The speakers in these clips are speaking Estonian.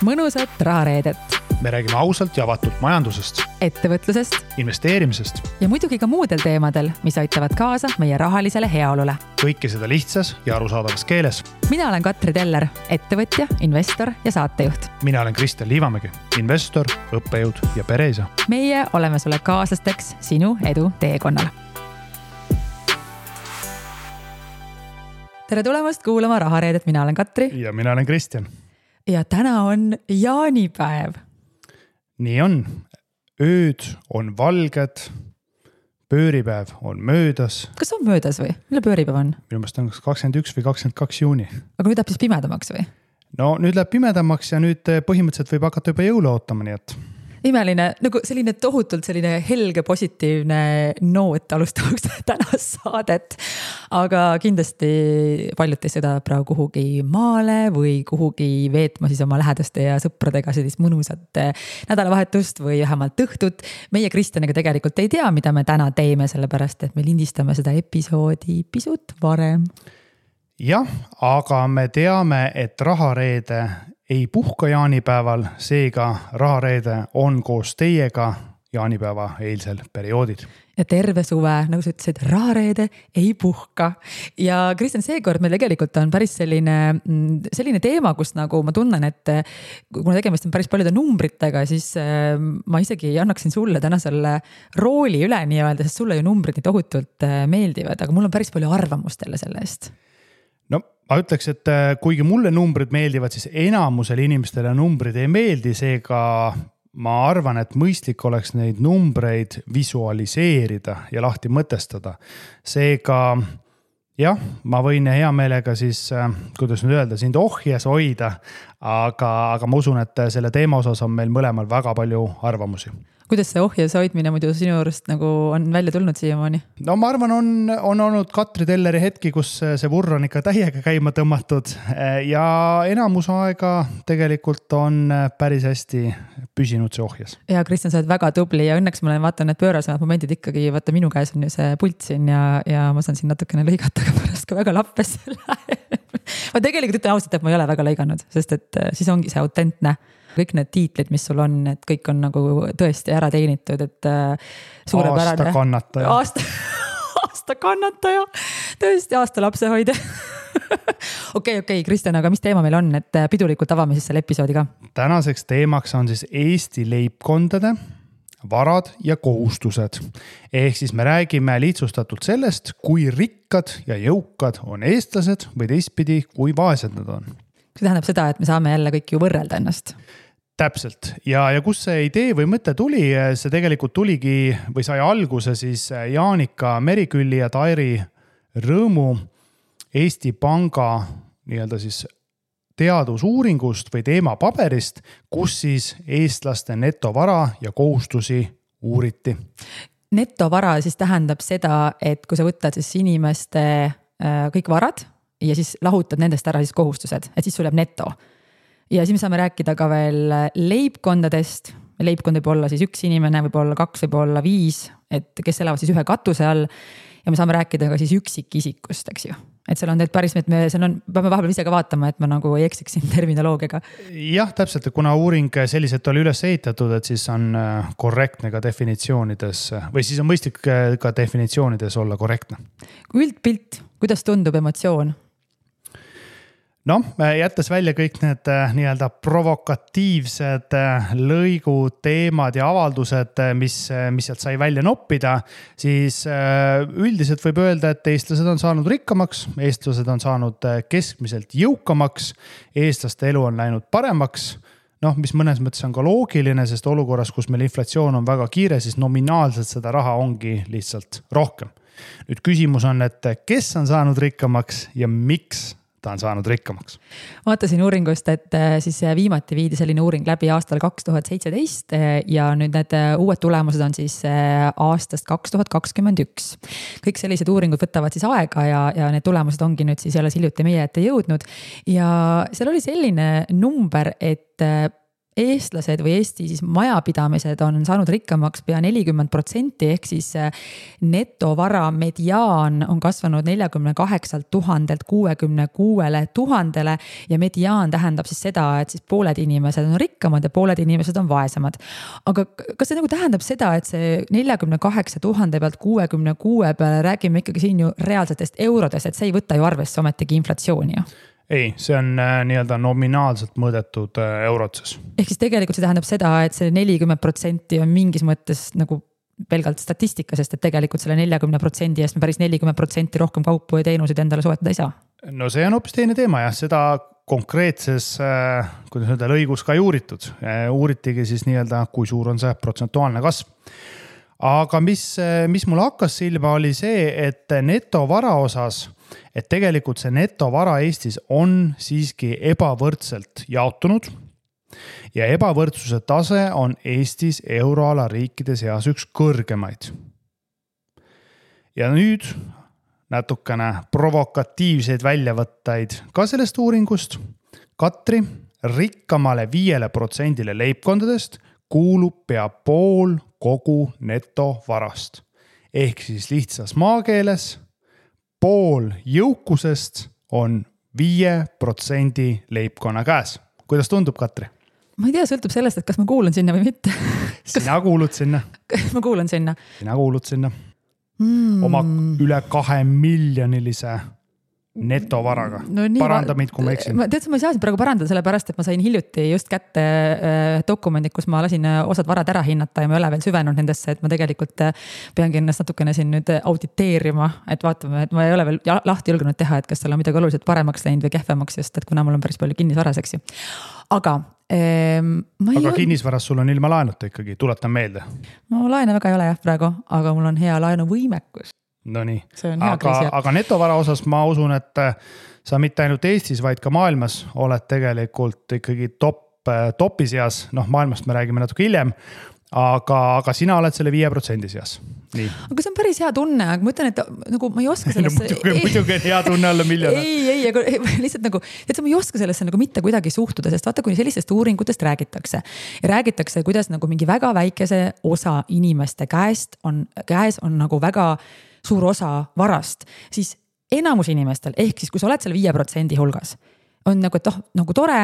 mõnusat rahareedet. Me räägime ausalt ja avatult majandusest, ettevõtlusest investeerimisest ja muidugi ka muudel teemadel, mis aitavad kaasa meie rahalisele heaolule. Kõike seda lihtsas ja arusaadavas keeles. Mina olen Katri Teller, ettevõtja, investor ja saatejuht. Mina olen Kristjan Liivamägi, investor, õppejõud ja pereisa. Meie oleme sulle kaaslasteks sinu edu teekonnal. Tere tulemast kuulama Rahareedet, mina olen Katri. Ja mina olen Kristjan. Ja täna on jaanipäev. Nii on. Ööd on valged, pööripäev on möödas. Kas on möödas või? Mille pööripäev on? Minu meelest on 21 või 22 juuni. Aga nüüd läheb siis pimedamaks või? No nüüd läheb pimedamaks ja nüüd põhimõtteliselt võib hakata juba jõule ootama, nii et... Imeline, nagu selline tohutult selline helge positiivne noot alustamaks tänast saadet. Aga kindlasti paljud teist seda praegu kuhugi maale või kuhugi veetma siis oma lähedaste ja sõpradega sellist mõnusat nädalavahetust või vähemalt õhtut. Meie Kristjaniga tegelikult ei tea, mida me täna teeme, sellepärast et me lindistame seda episoodi pisut varem. Jah, aga me teame, et Rahareede ei puhka jaanipäeval, seega Rahareede on koos teiega jaanipäeva eilsel perioodid. Ja terve suve, nagu sa ütlesid, Rahareede ei puhka. Ja Kristjan, seekord meil tegelikult on päris selline teema, kus nagu ma tunnen, et kuna tegemist on päris paljude numbritega, siis ma isegi annaksin sulle täna selle rooli üle nii-öelda, sest sulle ju numbrid nii tohutult meeldivad, aga mul on päris palju arvamust selle eest. No ma ütleks, et kuigi mulle numbrid meeldivad, siis enamusele inimestele numbrid ei meeldi, seega ma arvan, et mõistlik oleks neid numbreid visualiseerida ja lahti mõtestada. Seega jah, ma võin hea meelega siis, kuidas nüüd öelda, sind ohjes hoida, aga ma usun, et selle teema osas on meil mõlemal väga palju arvamusi. Kuidas see ohjes hoidmine muidu sinu juurest nagu on välja tulnud siiamaani? No ma arvan, on olnud Katri Telleri hetki, kus see vurr on ikka täiega käima tõmmatud ja enamus aega tegelikult on päris hästi püsinud see ohjes. Ja Kristjan, sa oled väga tubli ja õnneks ma vaatan need pöörasemad momendid ikkagi, vaata minu käes on ju see pult siin ja ma saan siin natukene lõigata, aga pärast ka väga lappes ma tegelikult ütlen ausalt, et ma ei ole väga lõiganud, sest et siis ongi see autentne. Kõik need tiitlid, mis sul on, et kõik on nagu tõesti ära teenitud, et suurepärane. Aasta kannataja. Aasta kannataja. Tõesti aasta lapsehoide. Okei, Kristjan, aga mis teema meil on, et pidulikult avame siis selle episoodi ka? Tänaseks teemaks on siis Eesti leibkondade varad ja kohustused. Ehk siis me räägime lihtsustatult sellest, kui rikkad ja jõukad on eestlased või teistpidi, kui vaesed nad on. See tähendab seda, et me saame jälle kõik ju võrrelda ennast. Täpselt. Ja kus see idee või mõte tuli, see tegelikult tuligi või sai alguse siis Jaanika Merikülli ja Tairi Rõõmu Eesti Panga nii-öelda siis teadusuuringust või teemapaberist, kus siis eestlaste netovara ja kohustusi uuriti. Netovara siis tähendab seda, et kui sa võtad siis inimeste kõik varad ja siis lahutad nendest ära siis kohustused, et siis sul jääb neto. Ja siis me saame rääkida ka veel leibkondadest. Leibkond võib olla siis üks inimene, võib olla 2, võib olla 5, et kes elavad siis ühe katuse all. Ja me saame rääkida ka siis üksikisikust, eks ju. Et seal on need päris, et me peame vahepeal ise ka vaatama, et ma nagu ei eksiksin terminoloogiaga. Jah, täpselt, kuna uuring selliselt oli üles ehitatud, et siis on korrektne ka definitsioonides või siis on mõistlik ka definitsioonides olla korrektne. Üldpilt, kuidas tundub emotsioon? No, jättes välja kõik need nii-öelda provokatiivsed lõigud, teemad ja avaldused, mis sealt sai välja noppida, siis üldiselt võib öelda, et eestlased on saanud rikkamaks, eestlased on saanud keskmiselt jõukamaks, eestlaste elu on läinud paremaks, mis mõnes mõttes on ka loogiline, sest olukorras, kus meil inflatsioon on väga kiire, siis nominaalselt seda raha ongi lihtsalt rohkem. Nüüd küsimus on, et kes on saanud rikkamaks ja miks ta on saanud rikkamaks. Vaatasin uuringust, et siis viimati viidi selline uuring läbi aastal 2017 ja nüüd need uued tulemused on siis aastast 2021. Kõik sellised uuringud võtavad siis aega ja need tulemused ongi nüüd siis jälle hiljuti meie ette jõudnud. Ja seal oli selline number, et eestlased või Eesti siis majapidamised on saanud rikkamaks pea 40%, ehk siis netovara mediaan on kasvanud 48 000-lt 66 000-le ja mediaan tähendab siis seda, et siis pooled inimesed on rikkamad ja pooled inimesed on vaesemad. Aga kas see nagu tähendab seda, et see 48 000 pealt 66 peale räägime ikkagi siin ju reaalsetest eurodest, et see ei võta ju arvesse ometigi inflatsiooni ju? Ei, see on nii-öelda nominaalselt mõõdetud eurotses. Ehk siis tegelikult see tähendab seda, et see 40% on mingis mõttes nagu pelgalt statistika, sest et tegelikult selle 40% eest me päris 40% rohkem kaupu ja teenuseid endale soetada ei saa. No see on hoopis teine teema jah, seda konkreetses, kuidas öelda, lõigus ka ei uuritud. Uuritigi siis nii-öelda, kui suur on see protsentuaalne kasv. Aga mis mul hakkas silma oli see, et netovara osas, et tegelikult see netovara Eestis on siiski ebavõrdselt jaotunud ja ebavõrdsuse tase on Eestis euroala riikide seas üks kõrgemaid. Ja nüüd natukene provokatiivseid väljavõtteid ka sellest uuringust. Katri, rikkamale 5% leibkondadest kuulub pea pool kogu netovarast. Ehk siis lihtsas maakeeles pool jõukusest on 5% leibkonna käes. Kuidas tundub, Katri? Ma ei tea, sõltub sellest, et kas ma kuulan sinna või mitte. Sina kuulud sinna. Ma kuulan sinna. Sina kuulud sinna. Oma üle 2 miljonilise netovaraga. No paranda mind, kui ma eksin. Ma ei saa siin praegu parandada sellepärast, et ma sain hiljuti just kätte dokumendid, kus ma lasin osad varad ära hinnata ja ma ei ole veel süvenud nendesse, et ma tegelikult peangi ennast natukene siin nüüd auditeerima, et vaatame, et ma ei ole veel lahti julgenud teha, et kas seal on midagi oluliselt paremaks läinud või kehvemaks, just et kuna mul on päris palju kinnisvaraseks. Aga kinnisvaras sul on ilma laenuta ikkagi, tuletan meelde. No laene väga ei ole jah praegu, aga mul on hea laenuvõimekus. No nii, aga netovara osas ma usun, et sa mitte ainult Eestis, vaid ka maailmas oled tegelikult ikkagi topi seas, maailmast me räägime natuke hiljem, aga sina oled selle 5% seas. Nii. Aga see on päris hea tunne, aga ma ütlen, et nagu ma ei oska sellesse... muidugi on hea tunne olla miljonär. Ei, aga lihtsalt nagu, et ma ei oska sellesse nagu mitte kuidagi suhtuda, sest vaata, kuni sellistest uuringutest räägitakse. Ja räägitakse, kuidas nagu mingi väga väikese osa inimeste käes on nagu väga suur osa varast, siis enamus inimestel, ehk siis kui sa oled seal 5% hulgas, on nagu, et nagu tore,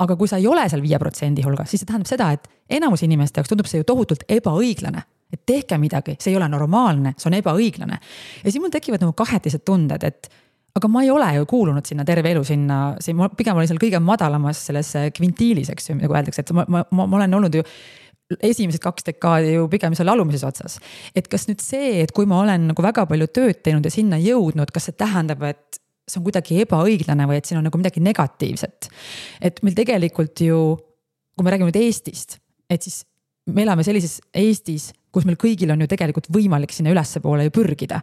aga kui sa ei ole seal 5% hulgas, siis see tähendab seda, et enamus inimeste jaoks tundub see ju tohutult ebaõiglane. Et tehke midagi, see ei ole normaalne, see on ebaõiglane. Ja siis mul tekivad nagu kahetised tunded, et aga ma ei ole ju kuulunud sinna terve elu sinna, pigem olin seal kõige madalamas selles kvintiilis, eks ju, nagu öeldakse, et ma olen olnud ju esimesed 2 dekaadi ju pigem seal alumises otsas. Et kas nüüd see, et kui ma olen nagu väga palju tööd teinud ja sinna jõudnud, kas see tähendab, et see on kuidagi ebaõiglane või et siin on nagu midagi negatiivset. Et meil tegelikult ju, kui me räägime nüüd Eestist, et siis me elame sellises Eestis, kus meil kõigil on ju tegelikult võimalik sinna ülesse poole ju pürgida.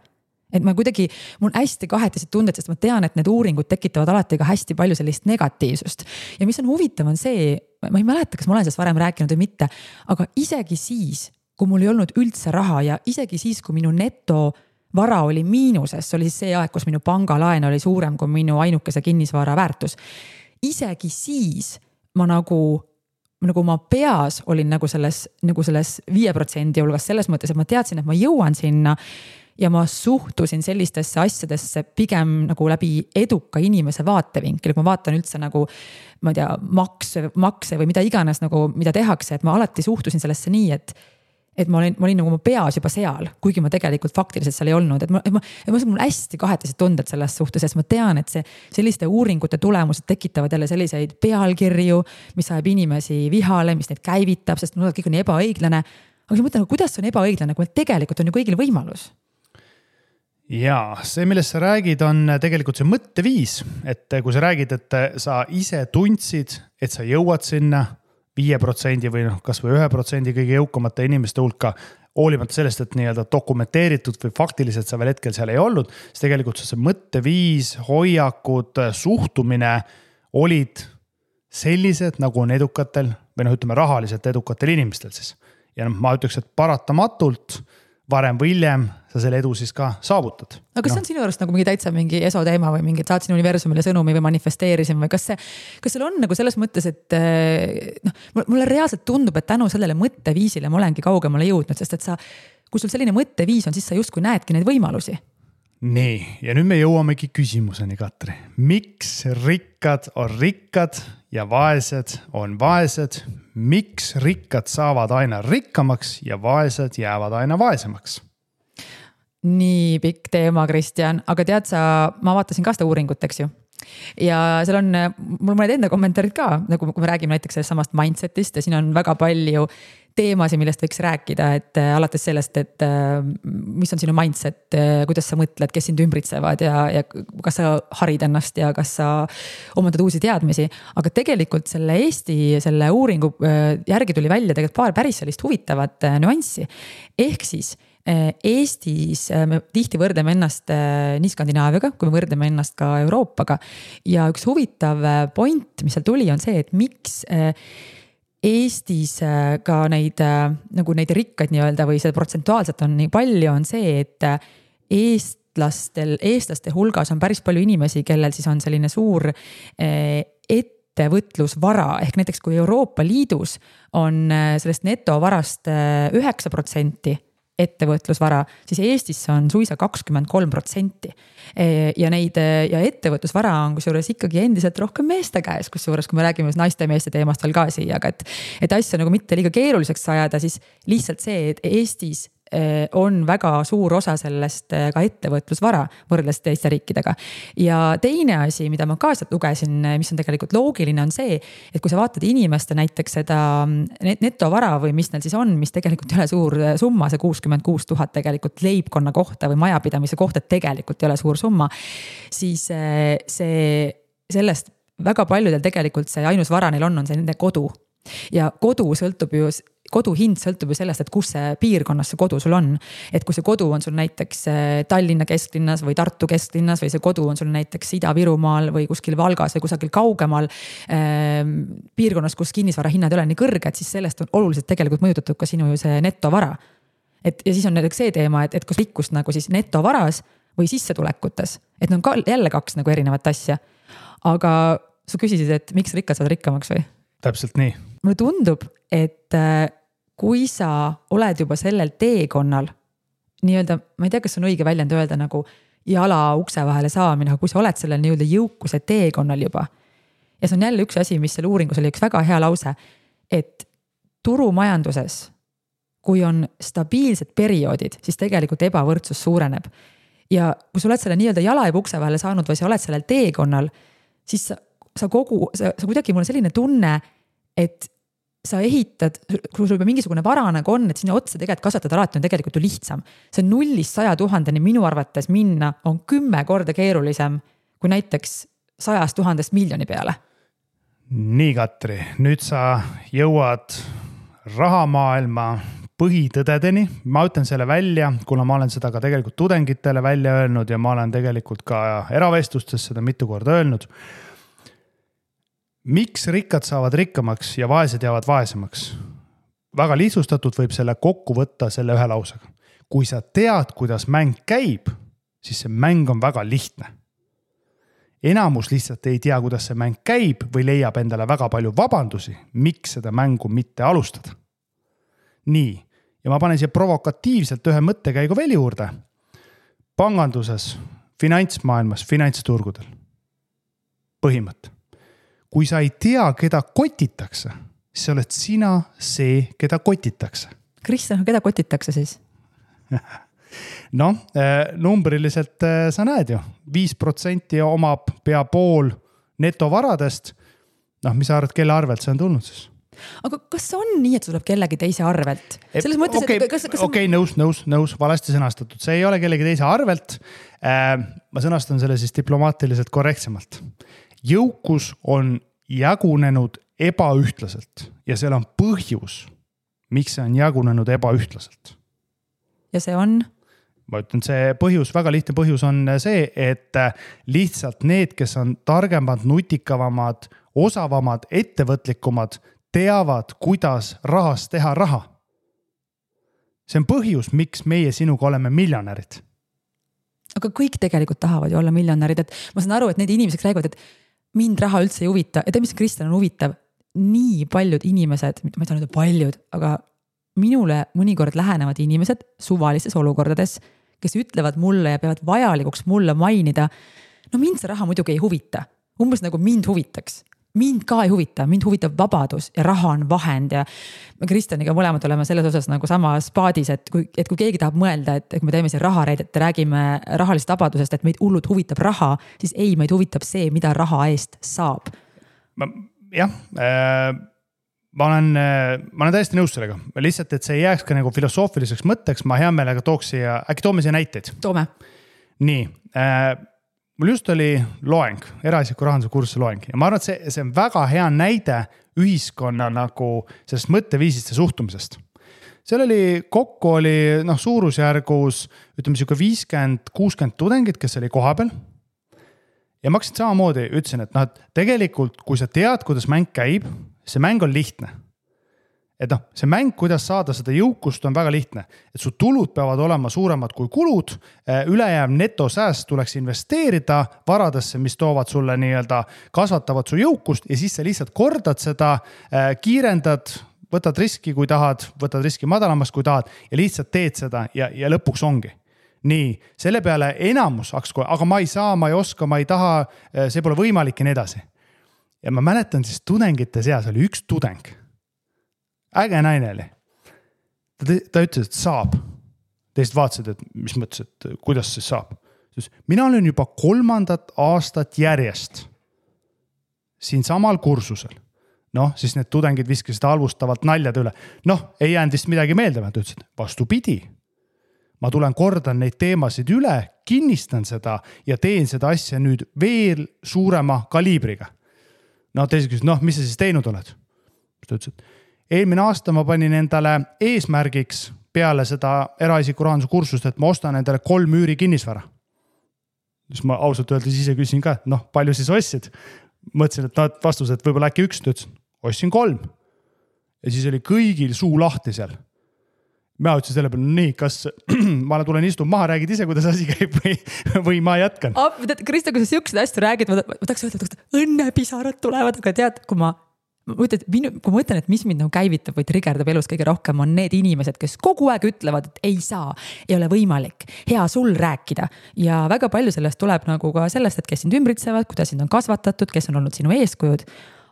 Et ma kuidagi, mul on hästi kahetised tunded, sest ma tean, et need uuringud tekitavad alati ka hästi palju sellist negatiivsust. Ja mis on huvitav on see, ma ei mäleta, kas ma olen sellest varem rääkinud või mitte, aga isegi siis, kui mul ei olnud üldse raha ja isegi siis, kui minu netovara oli miinuses, see oli siis see aeg, kus minu pangalaen oli suurem kui minu ainukese kinnisvara väärtus. Isegi siis ma nagu ma peas olin nagu selles 5% hulgas selles mõttes, et ma teadsin, et ma jõuan sinna ja ma suhtusin sellistesse asjadesse pigem nagu läbi eduka inimese vaatevinkel, kui ma vaatan üldse nagu, ma ei tea, makse või mida iganes nagu, mida tehakse, et ma alati suhtusin sellesse nii, et ma olin nagu oma peas juba seal, kuigi ma tegelikult faktiliselt seal ei olnud, et mul hästi kahetised tunded selles suhtes, sest ma tean, et selliste uuringute tulemused tekitavad jälle selliseid pealkirju, mis ajab inimesi vihale, mis neid käivitab, sest kõik on ebaõiglane. Aga ma mõtlen, kuidas on ebaõiglane, kui tegelikult on ju kõigil võimalus? Jaa, see, millest sa räägid, on tegelikult see mõtteviis, et kui sa räägid, et sa ise tundsid, et sa jõuad sinna 5% või kas või 1% kõige jõukamate inimeste hulka, hoolimata sellest, et nii-öelda dokumenteeritud või faktiliselt sa veel hetkel seal ei olnud, siis tegelikult see mõtteviis, hoiakud, suhtumine olid sellised, nagu on edukatel või ütleme rahaliselt edukatel inimestel siis. Ja ma ütleks, et paratamatult varem või hiljem sa selle edu siis ka saavutad. Aga kas see on sinu juurest nagu mingi täitsa mingi esoteema või mingi saatsin universumile sõnumi või manifesteerisin või kas seal on nagu selles mõttes, et mulle reaalselt tundub, et tänu sellele mõtteviisile ma olengi kaugemale jõudnud, sest et kui sul selline mõtteviis on, siis sa justkui näedki neid võimalusi. Nii, ja nüüd me jõuamegi küsimuseni, Katri. Miks rikkad on rikkad ja vaesed on vaesed? Miks rikkad saavad aina rikkamaks ja vaesed jäävad aina vaesemaks? Nii pikk teema, Kristjan, aga tead sa, ma vaatasin ka seda uuringut, eks ju. Ja seal on mul mõned enda kommentaarid ka, nagu kui me räägime näiteks sellest samast mindsetist ja siin on väga palju teemasid, millest võiks rääkida, et alates sellest, et mis on sinu mindset, kuidas sa mõtled, kes sind ümbritsevad ja kas sa harid ennast ja kas sa omandad uusi teadmisi. Aga tegelikult selle uuringu järgi tuli välja tegelikult paar päris sellist huvitavat nüanssi. Ehk siis Eestis me tihti võrdleme ennast nii Skandinaaviaga, kui me võrdleme ennast ka Euroopaga. Ja üks huvitav point, mis seal tuli, on see, et miks Eestis ka neid rikkaid nii-öelda või seda protsentuaalselt on nii palju, on see, et eestlaste hulgas on päris palju inimesi, kellel siis on selline suur ettevõtlusvara. Ehk näiteks kui Euroopa Liidus on sellest netovarast 9% ettevõtlusvara, siis Eestis on suisa 23%. Ja ettevõtlusvara on kusjuures ikkagi endiselt rohkem meeste käes, kusjuures kui me räägime naiste ja meeste teemast veel ka siia, aga et asja nagu mitte liiga keeruliseks ajada, siis lihtsalt see, et Eestis on väga suur osa sellest ka ettevõtlusvara võrreldes teiste riikidega. Ja teine asi, mida ma ka sealt lugesin, mis on tegelikult loogiline, on see, et kui sa vaatad inimeste näiteks seda netovara või mis neil siis on, mis tegelikult ei ole suur summa, see 66 000 tegelikult leibkonna kohta või majapidamise kohta tegelikult ei ole suur summa, siis sellest väga paljudel tegelikult see ainus vara neil on see nende kodu. Ja kodu hind sõltub ju sellest, et kus see piirkonnas see kodu sul on. Et kui see kodu on sul näiteks Tallinna kesklinnas või Tartu kesklinnas või see kodu on sul näiteks Ida-Virumaal või kuskil Valgas või kusagil kaugemal piirkonnas, kus kinnisvara hinnad ei ole nii kõrged, siis sellest on oluliselt tegelikult mõjutatud ka sinu ju see netovara. Ja siis on näiteks see teema, et kus rikkust nagu siis netovaras või sissetulekutes, et on ka jälle kaks nagu erinevat asja. Aga sa küsisid, et miks rikkad saavad rikkamaks või? Täpselt nii. Mulle tundub, et kui sa oled juba sellel teekonnal, nii-öelda, ma ei tea, kas on õige väljend öelda nagu jala ukse vahele saamine, aga kui sa oled sellel nii-öelda jõukuse teekonnal juba. Ja see on jälle üks asi, mis selle uuringus oli üks väga hea lause, et turumajanduses, kui on stabiilsed perioodid, siis tegelikult ebavõrdsus suureneb. Ja kui sa oled selle nii-öelda jala juba ukse vahele saanud või sa oled sellel teekonnal, siis sa kuidagi mul on selline tunne, et sa ehitad, kui sul juba mingisugune vara nagu on, et sinna otsa tegelikult kasvatada alati on tegelikult ju lihtsam. See 0-100 000 minu arvates minna on 10 korda keerulisem kui näiteks 100 000 miljoni peale. Nii, Katri, nüüd sa jõuad rahamaailma põhitõdedeni. Ma ütlen selle välja, kuna ma olen seda ka tegelikult tudengitele välja öelnud ja ma olen tegelikult ka eravestlustes seda mitu korda öelnud. Miks rikkad saavad rikkamaks ja vaesed jäävad vaesemaks? Väga lihtsustatud võib selle kokku võtta selle ühe lausega. Kui sa tead, kuidas mäng käib, siis see mäng on väga lihtne. Enamus lihtsalt ei tea, kuidas see mäng käib või leiab endale väga palju vabandusi, miks seda mängu mitte alustada. Nii, ja ma panen siia provokatiivselt ühe mõttekäigu veel juurde. Panganduses, finantsmaailmas, finantsturgudel. Põhimõte. Kui sa ei tea, keda kotitakse, siis oled sina see, keda kotitakse. Kristjan, keda kotitakse siis? Numbriliselt sa näed ju. 5% omab pea pool netovaradest. Mis sa arvad, kelle arvelt see on tulnud siis? Aga kas on nii, et see tuleb kellegi teise arvelt? Selles mõttes, Okei, nõus, valesti sõnastatud. See ei ole kellegi teise arvelt. Ma sõnastan selle siis diplomaatiliselt korrektsemalt. Jõukus on jagunenud ebaühtlaselt ja seal on põhjus, miks see on jagunenud ebaühtlaselt. Ja see on? Ma ütlen, see põhjus, väga lihtne põhjus on see, et lihtsalt need, kes on targemad, nutikavamad, osavamad, ettevõtlikumad, teavad, kuidas rahast teha raha. see on põhjus, miks meie sinuga oleme miljonärid. Aga kõik tegelikult tahavad ju olla miljonärid, et ma saan aru, et need inimesed räägivad, et mind raha üldse ei huvita. Ja mis Kristjan on huvitav, nii paljud inimesed, ma ei saa nüüd paljud, aga minule mõnikord lähenevad inimesed suvalistes olukordades, kes ütlevad mulle ja peavad vajalikuks mulle mainida, no mind see raha muidugi ei huvita. Umbes nagu mind huvitaks. Mind ka ei huvita, mind huvitab vabadus ja raha on vahend ja Kristjaniga mõlemad oleme selles osas nagu samas paadis, et kui keegi tahab mõelda, et kui me teeme siin rahareid, et räägime rahalisest vabadusest, et meid hullult huvitab raha, siis ei, meid huvitab see, mida raha eest saab. Ma olen täiesti nõus sellega. Lihtsalt, et see ei jääks ka nagu filosoofiliseks mõtteks, ma hea meelega äkki toome siia näiteid. Toome. Nii, mul just oli loeng, eraisiku rahanduse kursuse loeng ja ma arvan, et see on väga hea näide ühiskonna nagu sellest mõtteviisist ja suhtumisest. Seal kokku oli suurusjärgus, ütleme siuke 50-60 tudengid, kes oli koha peal. Ja ma hakkasin samamoodi, ütlesin, et tegelikult, kui sa tead, kuidas mäng käib, see mäng on lihtne. Et see mäng, kuidas saada seda jõukust, on väga lihtne. Et su tulud peavad olema suuremad kui kulud, ülejääv netosääst tuleks investeerida varadesse, mis toovad sulle nii-öelda kasvatavad su jõukust ja siis sa lihtsalt kordad seda, kiirendad, võtad riski, kui tahad, võtad riski madalamast, kui tahad ja lihtsalt teed seda ja lõpuks ongi. Nii, selle peale enamus aga ma ei saa, ma ei oska, ma ei taha, see pole võimalik ja nii edasi. Ja ma mäletan siis tudengite seas oli üks tudeng. Äge naine oli. Ta ütles, et saab. Teist vaatasid, et mis mõttes, et kuidas see saab. Mina olen juba 3. aastat järjest siin samal kursusel. Siis need tudengid viskasid halvustavalt naljad üle. Ei jäänud vist midagi meelde. Ta ütles, et vastupidi. Ma tulen kordan neid teemasid üle, kinnistan seda ja teen seda asja nüüd veel suurema kaliibriga. Teised küsis, mis sa siis teinud oled? Ta ütles, et eelmine aasta ma panin endale eesmärgiks peale seda eraisiku rahanduse kursust, et ma ostan endale 3 üüri kinnisvara. Siis ma ausalt öeldes ise küsin ka, palju siis ostsid? Mõtlesin, et vastus, et võib-olla äkki 1, ta ütles, ostsin 3. Ja siis oli kõigil suu lahti seal. Ma ütlesin selle peale, nii, kas ma tulen istun maha, räägid ise, kuidas asi käib või ma jätkan. Krista, kui sa siuksed hästi räägid, ma tahaks öelda, et õnnepisarad tulevad, aga tead, kui ma mõtlen, et mis mind nagu käivitab või trigerdab elus kõige rohkem, on need inimesed, kes kogu aeg ütlevad, et ei saa, ei ole võimalik, hea sul rääkida. Ja väga palju sellest tuleb nagu ka sellest, et kes sind ümbritsevad, kuidas sind on kasvatatud, kes on olnud sinu eeskujud.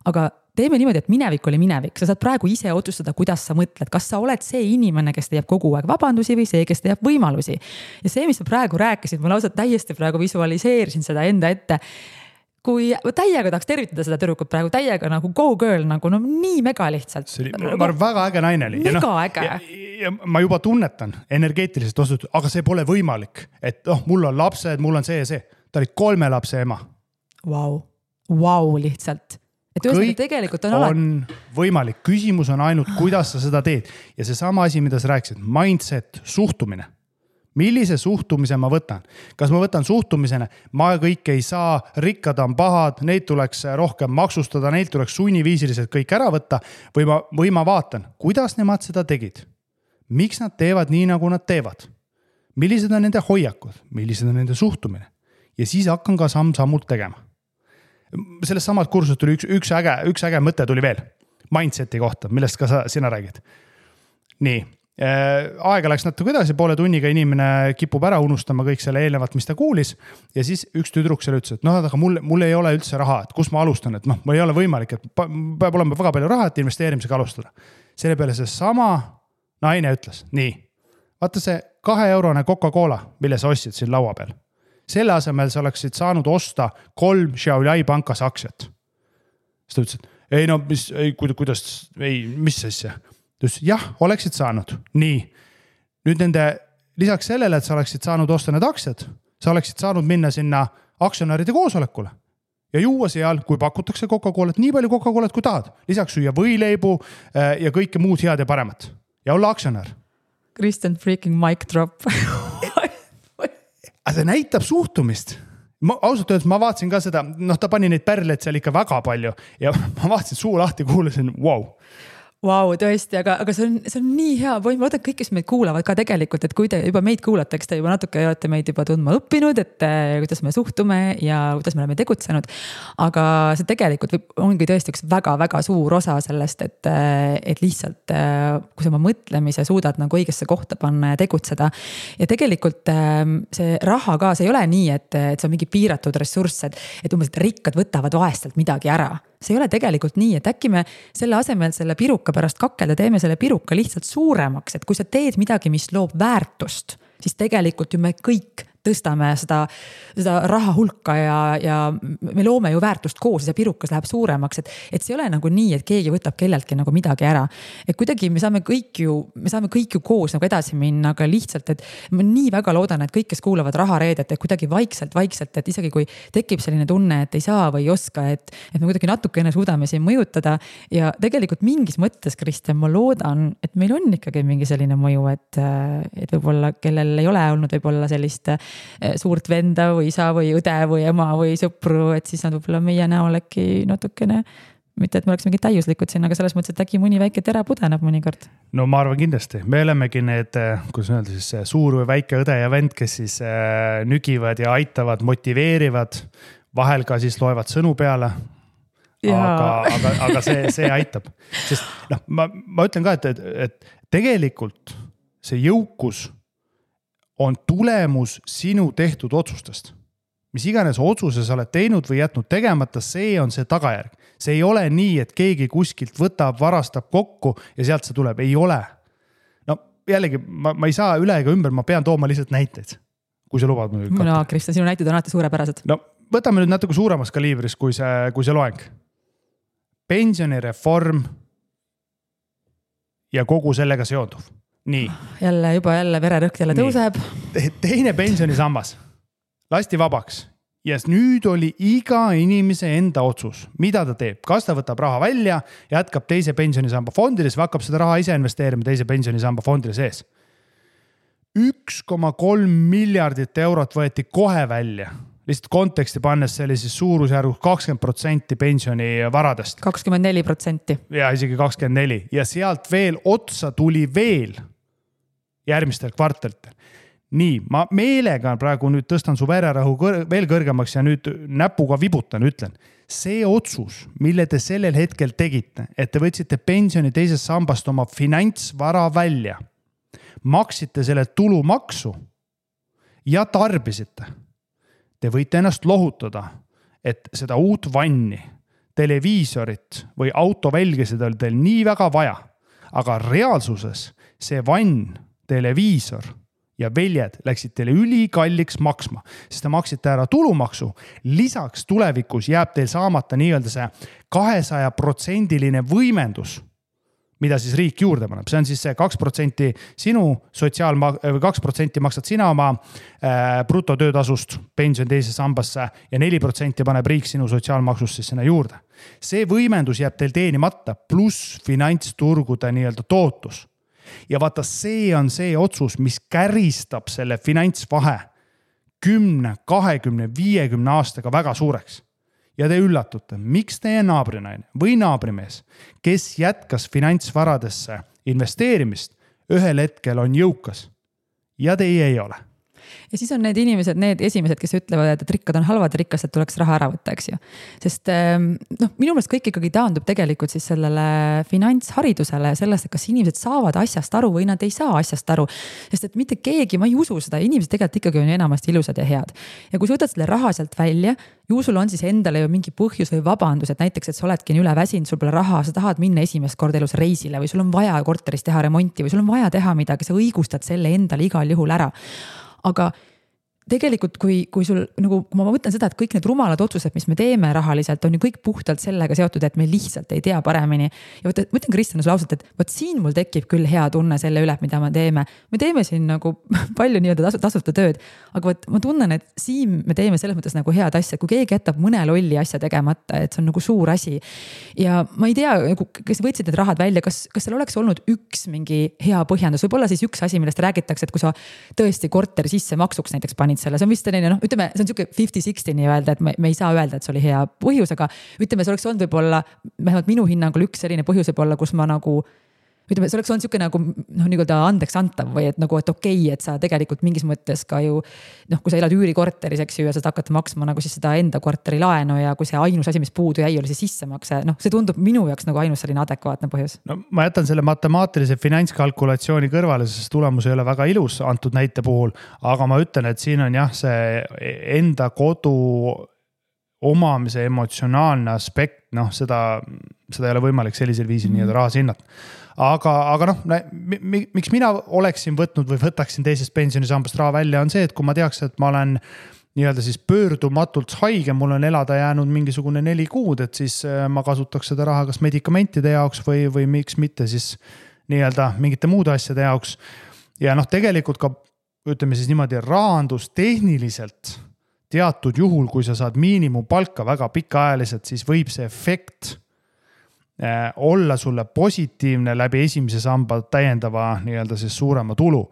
Aga teeme niimoodi, et minevik oli minevik. Sa saad praegu ise otsustada, kuidas sa mõtled. Kas sa oled see inimene, kes teeb kogu aeg vabandusi või see, kes teeb võimalusi. Ja see, mis sa praegu rääkisid, ma lausa täiesti praegu visualiseerisin seda enda ette. Kui täiega tahaks tervitada seda tüdrukut praegu, täiega nagu go girl, nagu nii mega lihtsalt. Ma arvan, väga äge naine oli. Mega äge. Ja ma juba tunnetan energeetiliselt osutud, aga see pole võimalik. Et mul on lapsed, mul on see ja see. Ta oli 3 lapse ema. Wow, lihtsalt. Et kõik tegelikult on võimalik. Küsimus on ainult, kuidas sa seda teed. Ja see sama asi, mida sa rääkisid, mindset, suhtumine. Millise suhtumise ma võtan? Kas ma võtan suhtumisena, ma kõik ei saa, rikkad on pahad, neid tuleks rohkem maksustada, neid tuleks sunniviisiliselt kõik ära võtta või ma vaatan, kuidas nemad seda tegid? Miks nad teevad nii, nagu nad teevad? Millised on nende hoiakud? Millised on nende suhtumine? Ja siis hakkan ka samm-sammult tegema. Sellest samalt kursust tuli üks äge mõte tuli veel. Mindseti kohta, millest ka sina räägid. Nii. Aega läks natuke edasi, poole tunniga inimene kipub ära unustama kõik selle eelnevat, mis ta kuulis ja siis üks tüdruk selle ütles, et aga mul ei ole üldse raha, et kus ma alustan, et mul ei ole võimalik, et peab olema väga palju raha, et investeerimisega alustada. Selle peale see sama naine ütles, nii, vaata see 2-eurone Coca-Cola, mille sa ostsid siin laua peal. Selle asemel sa oleksid saanud osta 3 Xiaoyai pankas aktsiat. Siis ta ütles, et mis asja? Jah, oleksid saanud. Nii. Nüüd lisaks sellele, et sa oleksid saanud osta need aktsiad, sa oleksid saanud minna sinna aktsionäride koosolekule ja juua seal, kui pakutakse Coca-Colat, nii palju Coca-Colat kui tahad. Lisaks süüa võileibu ja kõike muud head ja paremat. Ja olla aktsionär. Kristjan freaking mic drop. Aga see näitab suhtumist. Ausalt öeldes ma vaatasin ka seda, ta pani neid pärleid seal ikka väga palju ja ma vaatasin suu lahti, kuulasin, wow. Vau, tõesti, aga see on nii hea point, ma loodan, et kõik, kes meid kuulavad ka tegelikult, et kui te juba meid kuulate, eks te juba natuke olete meid juba tundma õppinud, et kuidas me suhtume ja kuidas me oleme tegutsenud. Aga see tegelikult ongi tõesti üks väga-väga suur osa sellest, et lihtsalt kui sa oma mõtlemise suudad nagu õigesse kohta panna ja tegutseda. Ja tegelikult see raha ka, see ei ole nii, et see on mingi piiratud ressurss, et umbes, et rikkad võtavad vaestelt midagi ära. See ei ole tegelikult nii, et äkki me selle asemel selle piruka pärast kakelda teeme selle piruka lihtsalt suuremaks, et kui sa teed midagi, mis loob väärtust, siis tegelikult ju me kõik tõstame seda raha hulka ja me loome ju väärtust koos ja see pirukas läheb suuremaks, et see ei ole nagu nii, et keegi võtab kelleltki nagu midagi ära. Et kuidagi me saame kõik ju koos nagu edasi minna, aga lihtsalt, et ma nii väga loodan, et kõik, kes kuulavad rahareedet, et kuidagi vaikselt, et isegi kui tekib selline tunne, et ei saa või ei oska, et me kuidagi natukene suudame siin mõjutada ja tegelikult mingis mõttes, Kristjan, ma loodan, et meil on ikkagi mingi selline mõju, et võib-olla kellel ei ole olnud võib-olla sellist suurt venda või isa või õde või ema või sõpru, et siis nad võib-olla meie näol äkki natukene, mitte et me oleks mingi täiuslikud siin, aga selles mõttes, et äkki mõni väike tera pudeneb mõnikord. No ma arvan kindlasti, me olemegi need, kuidas öelda siis suur või väike õde ja vend, kes siis nügivad ja aitavad, motiveerivad, vahel ka siis loevad sõnu peale. Aga see aitab, sest ma ütlen ka, et tegelikult see jõukus on tulemus sinu tehtud otsustest. Mis iganes otsuse sa oled teinud või jätnud tegemata, see on see tagajärg. See ei ole nii, et keegi kuskilt võtab, varastab kokku ja sealt see tuleb. Ei ole. No jällegi, ma ei saa üle ega ümber, ma pean tooma lihtsalt näiteid, kui sa lubad. No, Kristjan, sinu näited on alati suurepärased. No võtame nüüd natuke suuremas kaliibris, kui see loeng. Pensionireform ja kogu sellega seonduv. Nii. Jälle vererõhk jälle tõuseb. Teine pensionisammas lasti vabaks ja nüüd oli iga inimese enda otsus, mida ta teeb. Kas ta võtab raha välja, jätkab teise pensionisamba fondides või hakkab seda raha ise investeerima teise pensionisamba fondide sees. 1,3 miljardit eurot võeti kohe välja. Lihtsalt konteksti pannes see oli siis suurusjärgus 20% pensionivaradest. 24%. Ja isegi 24%. Ja sealt veel otsa tuli veel järgmistel kvartalitel. Nii, ma meelega praegu nüüd tõstan su vererahu veel kõrgemaks ja nüüd näpuga vibutan, ütlen. See otsus, mille te sellel hetkel tegite, et te võtsite pensioni teisest sambast oma finantsvara välja, maksite selle tulumaksu ja tarbisite. Te võite ennast lohutada, et seda uut vanni, televiisorit või autovälgesid oli teil nii väga vaja, aga reaalsuses see vann, televiisor ja väljed läksid teile ülikalliks maksma, sest te maksite ära tulumaksu. Lisaks tulevikus jääb teil saamata nii-öelda see 200% võimendus, mida siis riik juurde paneb. See on siis see 2% sinu 2% maksad sina oma brutotöötasust pension teise sambasse ja 4% paneb riik sinu sotsiaalmaksust siis sinna juurde. See võimendus jääb teil teenimata pluss finantsturgude nii-öelda tootlus. Ja vaata, see on see otsus, mis käristab selle finantsvahe 10, 20, 50 aastaga väga suureks. Ja te üllatute, miks teie naabrinaine või naabrimees, kes jätkas finantsvaradesse investeerimist, ühel hetkel on jõukas ja teie ei ole. Ja siis on need inimesed, need esimesed, kes ütlevad, et rikkad on halvad, rikkastelt tuleks raha ära võtta, eks ju. Sest minu meelest kõik ikkagi taandub tegelikult siis sellele finantsharidusele ja sellest, et kas inimesed saavad asjast aru või nad ei saa asjast aru. Sest et mitte keegi, ma ei usu seda, inimesed tegelikult ikkagi on enamasti ilusad ja head. Ja kui sa võtad selle raha sealt välja, ju sul on siis endale ju mingi põhjus või vabandus, et näiteks, et sa oledki üle väsinud, sul pole raha, sa tahad minna esimest korda elus reisile või sul on vaja korteris teha remonti või sul on vaja teha midagi, sa õigustad selle endale igal juhul ära. Aga tegelikult, kui sul, nagu ma mõtlen seda, et kõik need rumalad otsused, mis me teeme rahaliselt, on ju kõik puhtalt sellega seotud, et me lihtsalt ei tea paremini. Ja ma ütlen Kristjan sulle ausalt, et võt siin mul tekib küll hea tunne selle üle, mida me teeme. Me teeme siin nagu palju nii-öelda tasuta tööd, aga ma tunnen, et siin me teeme selles mõttes nagu head asja, kui keegi jätab mõne lolli asja tegemata, et see on nagu suur asi. Ja ma ei tea, kes võtsid need rahad välja, kas seal oleks olnud üks mingi hea põhjendus, võib-olla siis üks asi, millest räägitakse, et kui sa tõesti korteri sisse maksuks näiteks panid panid selle, see on vist selline, noh, ütleme, see on siuke 50-60 nii-öelda, et me ei saa öelda, et see oli hea põhjus, aga ütleme, see oleks olnud võib-olla, vähemalt minu hinnangul üks selline põhjus võib olla, kus ma nagu ütleme, see oleks olnud siuke nagu noh, nii-öelda andeks antav või et nagu, et okei, et sa tegelikult mingis mõttes ka ju noh, kui sa elad üürikorteris, eks ju, ja sa hakkad maksma nagu siis seda enda korteri laenu ja kui see ainus asi, mis puudu jäi, oli see sissemakse, noh, see tundub minu jaoks nagu ainus selline adekvaatne põhjus. No ma jätan selle matemaatilise finantskalkulatsiooni kõrvale, sest tulemus ei ole väga ilus antud näite puhul, aga ma ütlen, et siin on jah, see enda kodu omamise emotsionaalne aspekt, noh, seda ei ole võimalik sellisel viisil nii-öelda rahas hinnata. Aga noh, miks mina oleksin võtnud või võtaksin teisest pensionisambast raha välja, on see, et kui ma teaks, et ma olen nii-öelda siis pöördumatult haige, mul on elada jäänud mingisugune 4 kuud, et siis ma kasutaks seda raha kas medikamentide jaoks või miks mitte siis nii-öelda mingite muude asjade jaoks. Ja noh, tegelikult ka ütleme siis niimoodi rahandustehniliselt teatud juhul, kui sa saad miinimumpalka väga pikaajaliselt, siis võib see efekt olla sulle positiivne läbi esimese samba täiendava nii-öelda siis suurema tulu.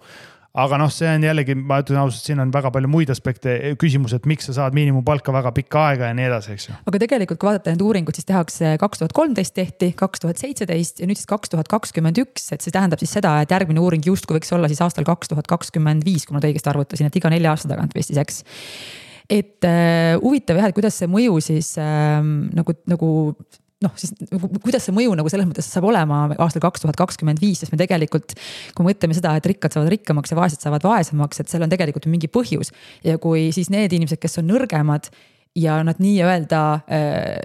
Aga noh, see on jällegi, ma ütlen ausalt, siin on väga palju muid aspekte, küsimus, et miks sa saad miinimumpalka väga pikka aega ja nii edasi, eks ju. Aga tegelikult, kui vaadata need uuringud, siis tehakse 2013 tehti, 2017 ja nüüd siis 2021, et see tähendab siis seda, et järgmine uuring justkui võiks olla siis aastal 2025, kui ma õigesti arvutasin, et iga 4 aasta tagant vist siis, eks. Et huvitav jah, et kuidas see mõju siis nagu noh, siis kuidas see mõju nagu selles mõttes saab olema aastal 2025, sest me tegelikult, kui mõtleme seda, et rikkad saavad rikkamaks ja vaesed saavad vaesemaks, et seal on tegelikult mingi põhjus. Ja kui siis need inimesed, kes on nõrgemad ja nad nii-öelda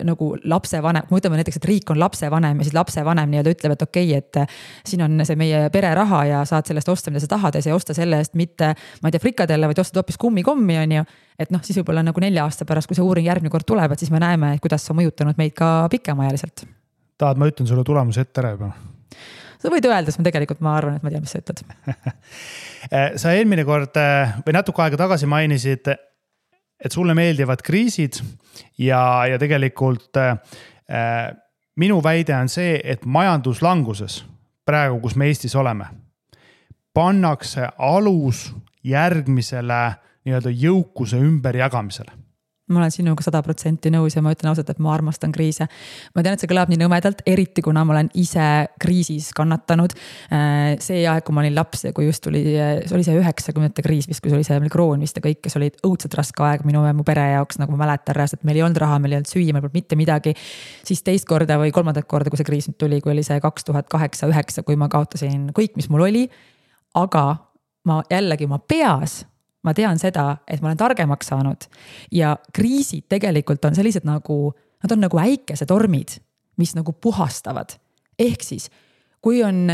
nagu lapsevanem, kui ütleme näiteks, et riik on lapsevanem ja siis lapsevanem nii-öelda ütleb, et okei, et siin on see meie pereraha ja saad sellest osta, mida sa tahad ja sa ei osta selle eest mitte, ma ei tea, frikadelle, vaid ostad hoopis kummikommi, on ju. Et noh, siis võib-olla nagu 4 aasta pärast, kui see uuring järgmine kord tuleb, et siis me näeme, kuidas see on mõjutanud meid ka pikemaajaliselt. Tahad, ma ütlen sulle tulemuse ette ära juba? Sa võid öelda, sest ma arvan, et ma tean, mis sa ütled. Sa eelmine kord või natuke aega tagasi mainisid, et sulle meeldivad kriisid ja tegelikult minu väide on see, et majanduslanguses, praegu kus me Eestis oleme, pannakse alus järgmisele nii-öelda jõukuse ümberjagamisele. Ma olen sinuga 100% nõus ja ma ütlen ausalt, et ma armastan kriise. Ma tean, et see kõlab nii nõmedalt, eriti kuna ma olen ise kriisis kannatanud. See aeg, kui ma olin laps ja kui just oli see 90-ndate kriis, kui see oli see kroon vist ja kõik, kes olid õudselt raske aeg minu pere jaoks, nagu ma mäletan räast, et meil ei olnud raha, meil ei olnud süüa, meil polnud mitte midagi. Siis teist korda või kolmandat korda, kui see kriis nüüd tuli, kui oli see 2008-2009, kui ma kaotasin kõik, mis mul oli. Aga ma jällegi oma peas ma tean seda, et ma olen targemaks saanud ja kriisid tegelikult on sellised nagu, nad on nagu äikesetormid, mis nagu puhastavad. Ehk siis, kui on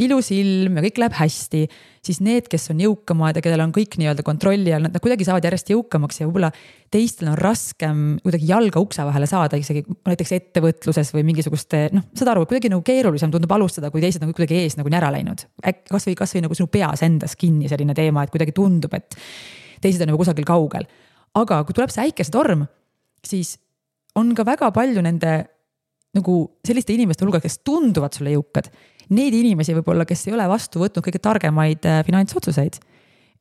ilus ilm ja kõik läheb hästi, siis need, kes on jõukamad ja kellel on kõik nii-öelda kontrolli all, nad kuidagi saavad järjest jõukamaks ja võib-olla teistel on raskem kuidagi jalga ukse vahele saada, isegi näiteks ettevõtluses või mingisuguste, noh, saad aru, kuidagi nagu keerulisem tundub alustada, kui teised nagu kuidagi ees nagu ära läinud. Kas või nagu sinu peas endas kinni selline teema, et kuidagi tundub, et teised on nagu kusagil kaugel. Aga kui tuleb see äikesetorm, siis on ka väga palju nende nagu selliste inimeste hulga, kes tunduvad sulle jõukad. Need inimesi võib-olla, kes ei ole vastu võtnud kõige targemaid finantsotsuseid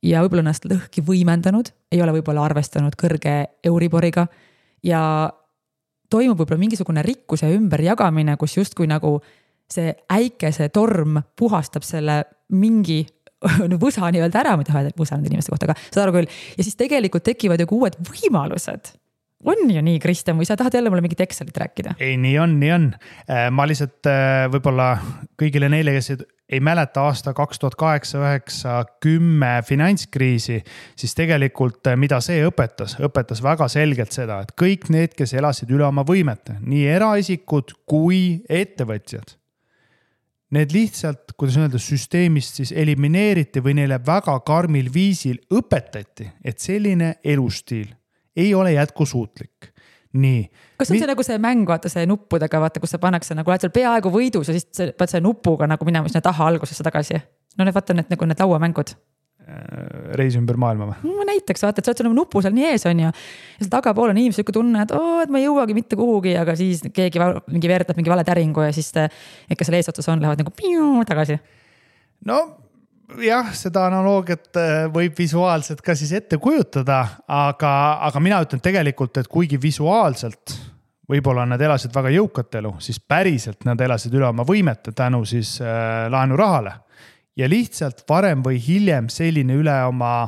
ja võib-olla ennast lõhki võimendanud, ei ole võib-olla arvestanud kõrge Euriboriga ja toimub võib-olla mingisugune rikkuse ümberjagamine, kus justkui nagu see äikese torm puhastab selle mingi võsa nii-öelda ära, mida võsa nende inimeste kohta, aga saad aru küll. Ja siis tegelikult tekivad ju uued võimalused. On ju nii, Kristjan, või sa tahad jälle mulle mingit Excelit rääkida? Ei, nii on. Ma lihtsalt võib-olla kõigile neile, kes ei mäleta aasta 2008-2010 finantskriisi, siis tegelikult mida see õpetas väga selgelt seda, et kõik need, kes elasid üle oma võimete, nii eraisikud kui ettevõtjad, need lihtsalt, kuidas öelda, süsteemist siis elimineeriti või neile väga karmil viisil õpetati, et selline elustiil ei ole jätkusuutlik. Nii. Kas on see nagu see mäng, vaata see nuppudega, vaata, kus sa pannakse nagu oled seal peaaegu võidus ja siis pead see nupuga nagu minema sinna taha algusesse tagasi. No need vaata need, nagu need lauamängud. Reis ümber maailma või? No, näiteks vaata, et sa oled seal nupu seal nii ees on ja seal tagapool on inimesed tunne, et ma ei jõuagi mitte kuhugi, aga siis keegi mingi veertab mingi vale täringu ja siis ikka seal eesotsas on, lähevad nagu piu tagasi. No jah, seda analoogiat võib visuaalselt ka siis ette kujutada, aga mina ütlen tegelikult, et kuigi visuaalselt võib-olla nad elasid väga jõukat elu, siis päriselt nad elasid üle oma võimete tänu siis laenurahale. Ja lihtsalt varem või hiljem selline üle oma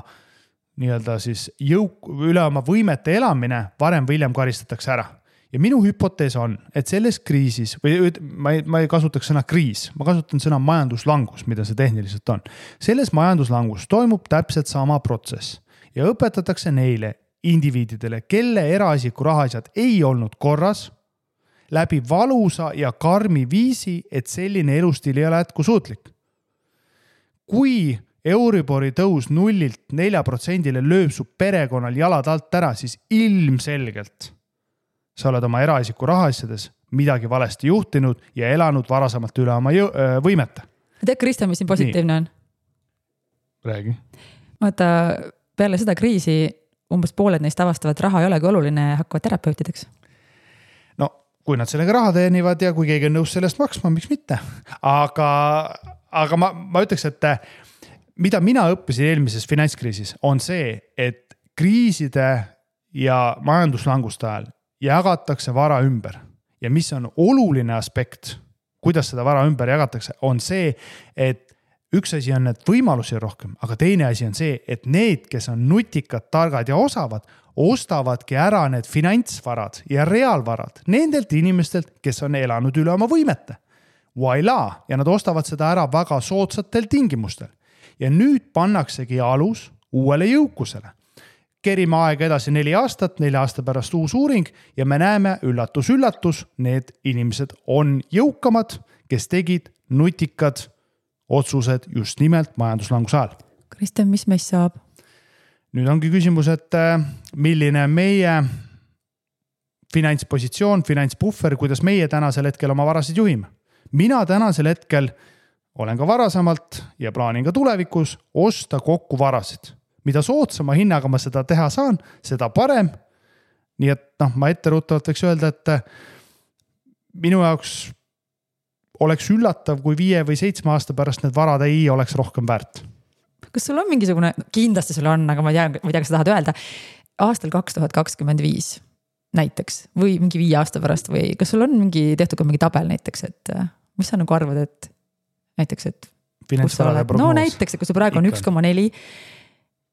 nii-öelda siis üle oma võimete elamine varem või hiljem karistatakse ära. Ja minu hüpotees on, et selles kriisis, või ma ei kasutaks sõna kriis, ma kasutan sõna majanduslangus, mida see tehniliselt on. Selles majanduslangus toimub täpselt sama protsess ja õpetatakse neile indiviididele, kelle eraisiku rahaasjad ei olnud korras, läbi valusa ja karmi viisi, et selline elustiil ei ole jätkusuutlik. Kui Euribori tõus 0-4% lööb su perekonnal jalad alt ära, siis ilmselgelt sa oled oma eraisiku rahaasjades midagi valesti juhtinud ja elanud varasemalt üle oma võimete. Tead, Kristjan, mis siin positiivne on? Räägi. Vaata, peale seda kriisi umbes pooled neist avastavad, raha ei olegi oluline ja hakkavad terapeutideks. No, kui nad sellega raha teenivad ja kui keegi on nõus sellest maksma, miks mitte? Aga ma ütleks, et mida mina õppisin eelmises finantskriisis on see, et kriiside ja majanduslanguste ajal jagatakse vara ümber. Ja mis on oluline aspekt, kuidas seda vara ümber jagatakse, on see, et üks asi on need võimalusi rohkem, aga teine asi on see, et need, kes on nutikad, targad ja osavad, ostavadki ära need finantsvarad ja reaalvarad nendelt inimestelt, kes on elanud üle oma võimete. Voila! Ja nad ostavad seda ära väga soodsatel tingimustel. Ja nüüd pannaksegi alus uuele jõukusele. Kerime aega edasi 4 aastat, 4 aasta pärast uus uuring ja me näeme üllatus, need inimesed on jõukamad, kes tegid nutikad otsused just nimelt majanduslanguse ajal. Kristjan, mis meist saab? Nüüd ongi küsimus, et milline meie finantspositsioon, finantsbuffer, kuidas meie tänasel hetkel oma varasid juhime. Mina tänasel hetkel olen ka varasemalt ja plaanin ka tulevikus osta kokku varasid. Mida soodsama hinnaga ma seda teha saan, seda parem. Nii et ma etteruttavalt võiks öelda, et minu jaoks oleks üllatav, kui 5 või 7 aasta pärast need varad ei oleks rohkem väärt. Kas sul on mingisugune, kindlasti sul on, aga ma ei tea, kas sa tahad öelda, aastal 2025 näiteks või mingi 5 aasta pärast või kas sul on tehtud ka mingi tabel näiteks, et mis sa nagu arvad, et näiteks, et no näiteks, et kui see praegu on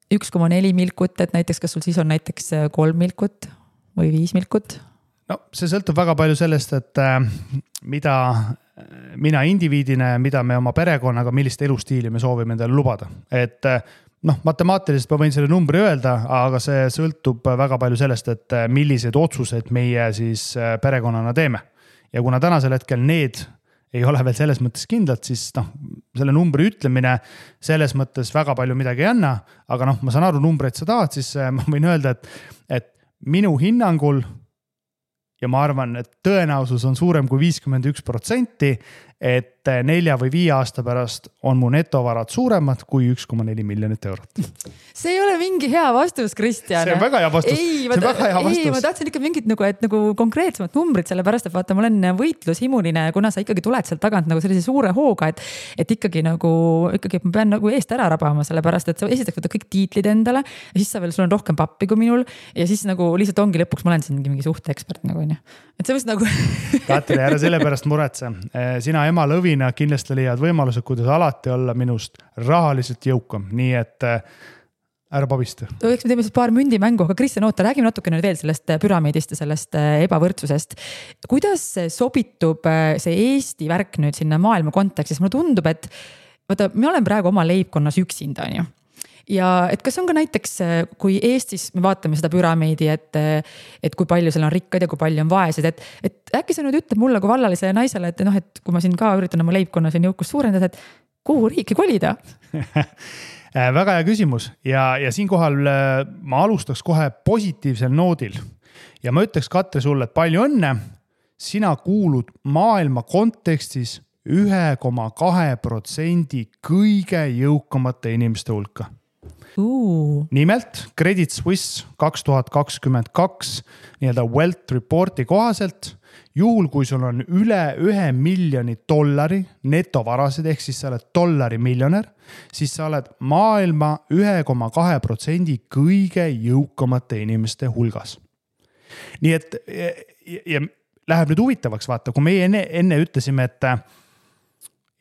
1,4 milkut, et näiteks kas sul siis on näiteks 3 milkut või 5 milkut? No see sõltub väga palju sellest, et mida mina indiviidina ja mida me oma perekonnaga, millist elustiili me soovime endale lubada. Et matemaatiliselt ma võin selle numbri öelda, aga see sõltub väga palju sellest, et millised otsused meie siis perekonnana teeme. Ja kuna tänasel hetkel need ei ole veel selles mõttes kindlad, siis selle numbri ütlemine selles mõttes väga palju midagi ei anna, aga ma saan aru numbreid sa tahad, siis ma võin öelda, et minu hinnangul ja ma arvan, et tõenäosus on suurem kui 51%, et 4 või 5 aasta pärast on mu netovarad suuremad kui 1,4 miljonit eurot. See ei ole mingi hea vastus, Kristjan. See on väga hea vastus. Ei, ma tahtsin ikka mingit nagu konkreetsemat numbrit, sellepärast, et vaata, ma olen võitlushimuline, kuna sa ikkagi tuled sealt tagant nagu sellise suure hooga, et ikkagi ma pean nagu eest ära rabama, sellepärast, et sa esitaks võtta kõik tiitlid endale ja siis sul on rohkem pappi kui minul ja siis nagu lihtsalt ongi lõpuks, ma olen siin mingi suhteekspert nagu, et see võiks nagu... Katri, ära selle pärast muretse. Sina ema lõvina kindlasti leiad võimalused, kuidas alati olla minust rahaliselt jõukam. Nii et ära pabista. Eks me teeme siis paar mündimängu, aga Kristjan, räägime natukene veel sellest püramiidist ja sellest ebavõrdsusest. Kuidas sobitub see Eesti värk nüüd sinna maailma kontekstis? Mulle tundub, et vaata, me olen praegu oma leibkonnas üksinda, on ju. Ja et kas on ka näiteks, kui Eestis me vaatame seda püramiidi, et kui palju seal on rikkad ja kui palju on vaesed, et äkki sa nüüd ütled mulle kui vallalisele naisele, et kui ma siin ka üritan oma leibkonna siin jõukust suurendada, et kuhu riiki kolida? Väga hea küsimus ja siinkohal ma alustaks kohe positiivsel noodil ja ma ütleks, Katri, sulle, et palju õnne, sina kuulud maailma kontekstis 1,2% kõige jõukamate inimeste hulka. Nimelt Credit Suisse 2022 nii-öelda Wealth Reporti kohaselt juhul kui sul on üle $1 miljoni netovarasid, ehk siis sa oled dollarimiljonär, siis sa oled maailma 1,2% kõige jõukamate inimeste hulgas. Nii et ja läheb nüüd huvitavaks, vaata, kui meie enne ütlesime, et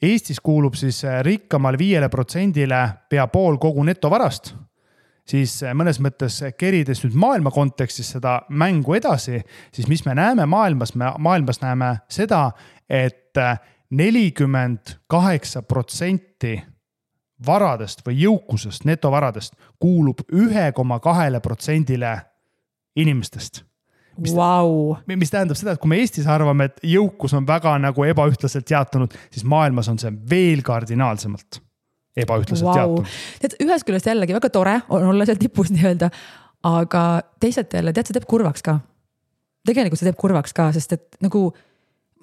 Eestis kuulub siis rikkamal 5%-le pea pool kogu netovarast, siis mõnes mõttes kerides nüüd maailma kontekstis seda mängu edasi, siis mis me näeme maailmas näeme seda, et 48% varadest või jõukusest, netovaradest kuulub 1,2%-le inimestest. Mis tähendab seda, et kui me Eestis arvame, et jõukus on väga nagu ebaühtlaselt jaotunud, siis maailmas on see veel kardinaalsemalt ebaühtlaselt jaotunud. Ühes küljest jällegi väga tore on olla seal tipus nii-öelda, aga teisalt jälle, tead, see teeb kurvaks ka. Tegelikult see teeb kurvaks ka, sest et nagu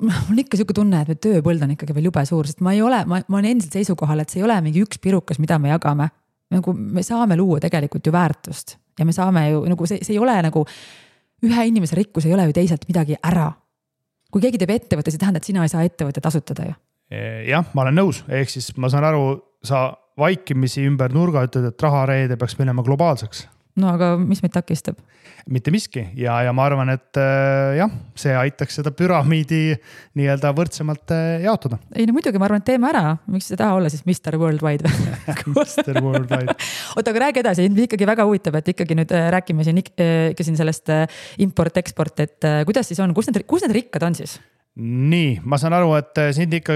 mul ikka selline tunne, et tööpõld on ikkagi veel jube suur, sest ma olen endiselt seisukohal, et see ei ole mingi üks pirukas, mida me jagame. Nagu me saame luua tegelikult ju väärtust ja me saame ju, nagu see ei ole nagu ühe inimese rikkus ei ole ju teiselt midagi ära. Kui keegi teeb ettevõtte, see tähendab, et sina ei saa ettevõtte tasutada ju. Jah, ma olen nõus, ehk siis ma saan aru, sa vaikimisi ümber nurga ütled, et rahareede peaks minema globaalseks. No aga mis meid takistab? Mitte miski ja ma arvan, et jah, see aitaks seda püramiidi nii-öelda võrdsemalt jaotada. Ei, no muidugi ma arvan, et teeme ära. Miks see taha olla siis Mr. Worldwide? Mr. Worldwide. Oota, aga räägi edasi, ikkagi väga huvitav, et ikkagi nüüd räägime siin sellest import-export, et kuidas siis on, kus need rikkad on siis? Nii, ma saan aru, et sind ikka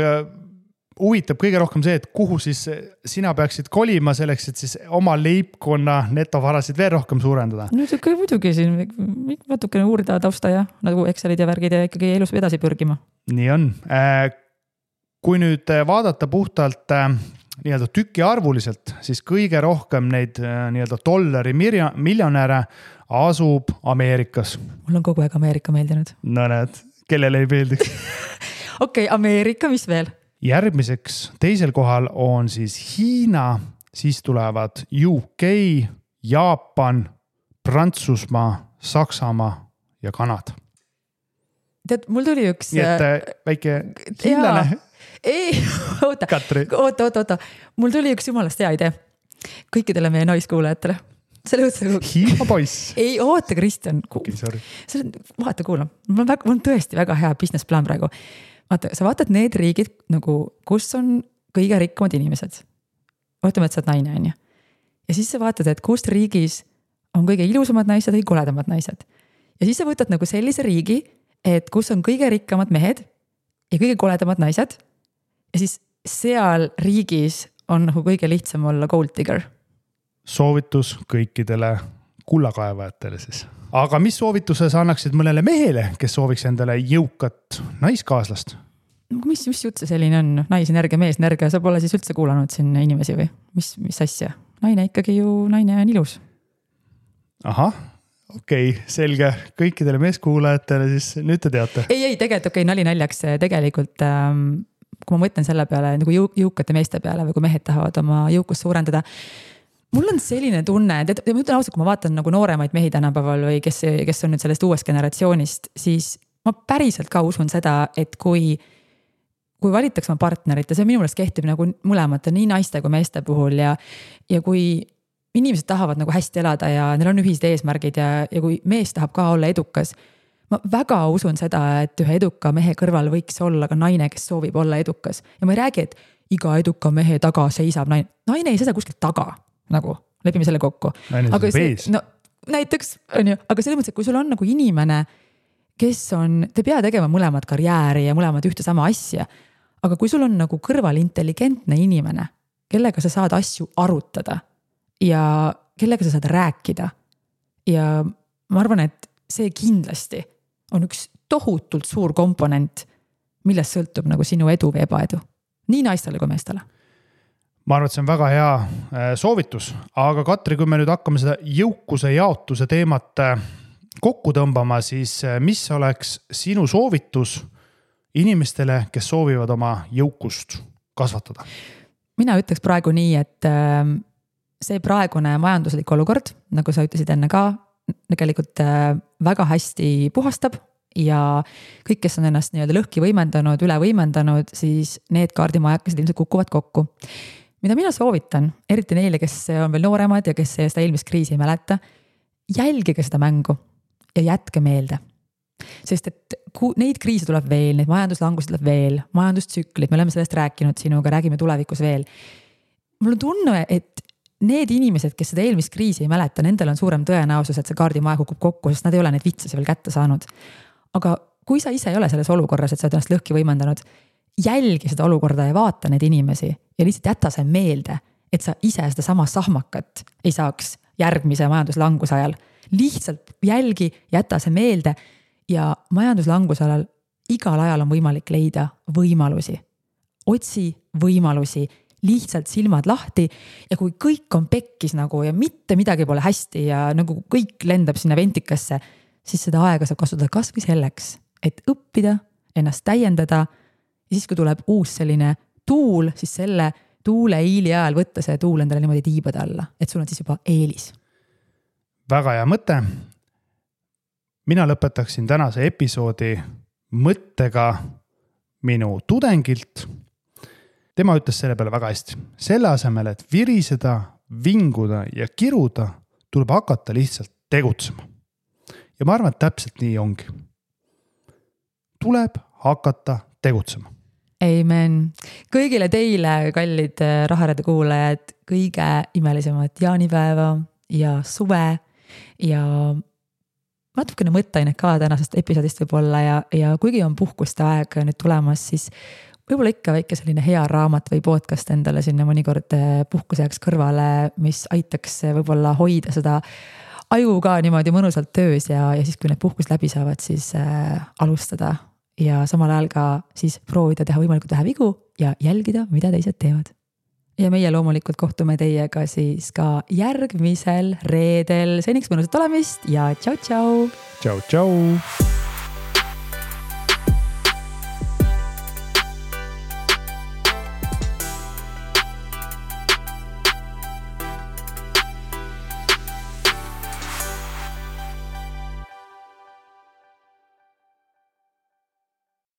huvitab kõige rohkem see, et kuhu siis sina peaksid kolima selleks, et siis oma leibkonna netovarasid veel rohkem suurendada. No see muidugi siin natukene uurida tausta ja nagu Excelid ja värgid ja ikkagi elus edasi pürgima. Nii on. Kui nüüd vaadata puhtalt nii-öelda tüki arvuliselt, siis kõige rohkem neid nii-öelda dollari miljonäre asub Ameerikas. Mul on kogu aeg Ameerika meeldinud. No näed, kellele ei meeldiks? Okei, Ameerika, mis veel? Järgmiseks teisel kohal on siis Hiina, siis tulevad UK, Jaapan, Prantsusmaa, Saksamaa ja Kanada. Tead, mul tuli üks... Nii et väike hiinlane. Ei, oota. Mul tuli üks jumalast hea idee. Kõikidele meie naiskuulajatele. Hiina poiss. Ei, oota, Kristjan. Vaata, kuula. Mul on tõesti väga hea business plan praegu. Vaata, sa vaatad need riigid, nagu, kus on kõige rikkamad inimesed. Ootame, et sa oled naine, on ju. Ja siis sa vaatad, et kust riigis on kõige ilusamad naised või koledamad naised. Ja siis sa võtad nagu sellise riigi, et kus on kõige rikkamad mehed ja kõige koledamad naised. Ja siis seal riigis on nagu kõige lihtsam olla gold digger. Soovitus kõikidele kullakaevajatele siis. Aga mis soovituse sa annaksid mõnele mehele, kes sooviks endale jõukat naiskaaslast? Mis jutt see selline on? Naisenergia, meesenergia, sa pole siis üldse kuulanud siin inimesi või? Mis asja? Naine ikkagi ju, naine on ilus. Ahah, okei, selge. Kõikidele meeskuulajatele siis nüüd te teate. Ei, tegelikult nali naljaks tegelikult, kui ma mõtlen selle peale nagu jõukate meeste peale või kui mehed tahavad oma jõukust suurendada, mul on selline tunne, et ma ütlen ausalt, kui ma vaatan nagu nooremaid mehi tänapäeval või kes on nüüd sellest uuest generatsioonist, siis ma päriselt ka usun seda, et kui valitaks oma partnerit ja see minu meelest kehtib nagu mõlemate, nii naiste kui meeste puhul ja kui inimesed tahavad nagu hästi elada ja neil on ühised eesmärgid ja kui mees tahab ka olla edukas, ma väga usun seda, et ühe eduka mehe kõrval võiks olla ka naine, kes soovib olla edukas. Ja ma ei räägi, et iga eduka mehe taga seisab naine. Naine ei seisa kuskilt taga. Nagu, lepime selle kokku. Aga no, näiteks, on ju, aga selles mõttes, et kui sul on nagu inimene, kes on, te pea tegema mõlemad karjääri ja mõlemad ühte sama asja, aga kui sul on nagu kõrval intelligentne inimene, kellega sa saad asju arutada ja kellega sa saad rääkida ja ma arvan, et see kindlasti on üks tohutult suur komponent, millest sõltub nagu sinu edu või ebaedu. Nii naistele kui meestele. Ma arvan, et see on väga hea soovitus, aga Katri, kui me nüüd hakkame seda jõukuse jaotuse teemat kokku tõmbama, siis mis oleks sinu soovitus inimestele, kes soovivad oma jõukust kasvatada? Mina ütleks praegu nii, et see praegune majanduslik olukord, nagu sa ütlesid enne ka, tegelikult väga hästi puhastab ja kõik, kes on ennast nii-öelda lõhki võimendanud, üle võimendanud, siis need kaardimajakesed ilmselt kukuvad kokku. Mida mina soovitan, eriti neile, kes on veel nooremad ja kes seda eelmist kriisi ei mäleta, jälgige seda mängu ja jätke meelde. Sest et neid kriise tuleb veel, neid majanduslangusi tuleb veel, majandustsüklid, me oleme sellest rääkinud sinuga, räägime tulevikus veel. Mul on tunne, et need inimesed, kes seda eelmist kriisi ei mäleta, nendel on suurem tõenäosus, et see kaardimaja kukub kokku, sest nad ei ole neid vitsasi veel kätte saanud. Aga kui sa ise ei ole selles olukorras, et sa oled ennast lõhki võimendanud, jälgi seda olukorda ja vaata neid inimesi ja lihtsalt jäta see meelde, et sa ise seda sama sahmakat ei saaks järgmise majanduslanguse ajal. Lihtsalt jälgi, jäta see meelde ja majanduslanguse ajal igal ajal on võimalik leida võimalusi. Otsi võimalusi, lihtsalt silmad lahti ja kui kõik on pekkis nagu ja mitte midagi pole hästi ja nagu kõik lendab sinna ventikasse, siis seda aega saab kasutada kas või selleks, et õppida, ennast täiendada ja siis, kui tuleb uus selline tuul, siis selle tuule iili ajal võtta see tuul endale niimoodi tiibade alla, et sul on siis juba eelis. Väga hea mõte. Mina lõpetaksin tänase episoodi mõttega minu tudengilt. Tema ütles selle peale väga hästi. Selle asemel, et viriseda, vinguda ja kiruda, tuleb hakata lihtsalt tegutsema. Ja ma arvan, et täpselt nii ongi. Tuleb hakata tegutsema. Amen. Kõigile teile, kallid Raharedu kuulajad, kõige imelisemat jaanipäeva ja suve ja natukene mõtteainet ka tänasest episoodist võib-olla ja kuigi on puhkuste aeg nüüd tulemas, siis võib-olla ikka väike selline hea raamat või podcast endale sinna mõnikord puhkuseks kõrvale, mis aitaks võib-olla hoida seda aju ka niimoodi mõnusalt töös ja siis, kui need puhkus läbi saavad, siis alustada ja samal ajal ka siis proovida teha võimalikult vähe vigu ja jälgida, mida teised teevad. Ja meie loomulikult kohtume teiega siis ka järgmisel reedel. Seniks mõnusat olemist ja tšau, tšau! Tšau, tšau!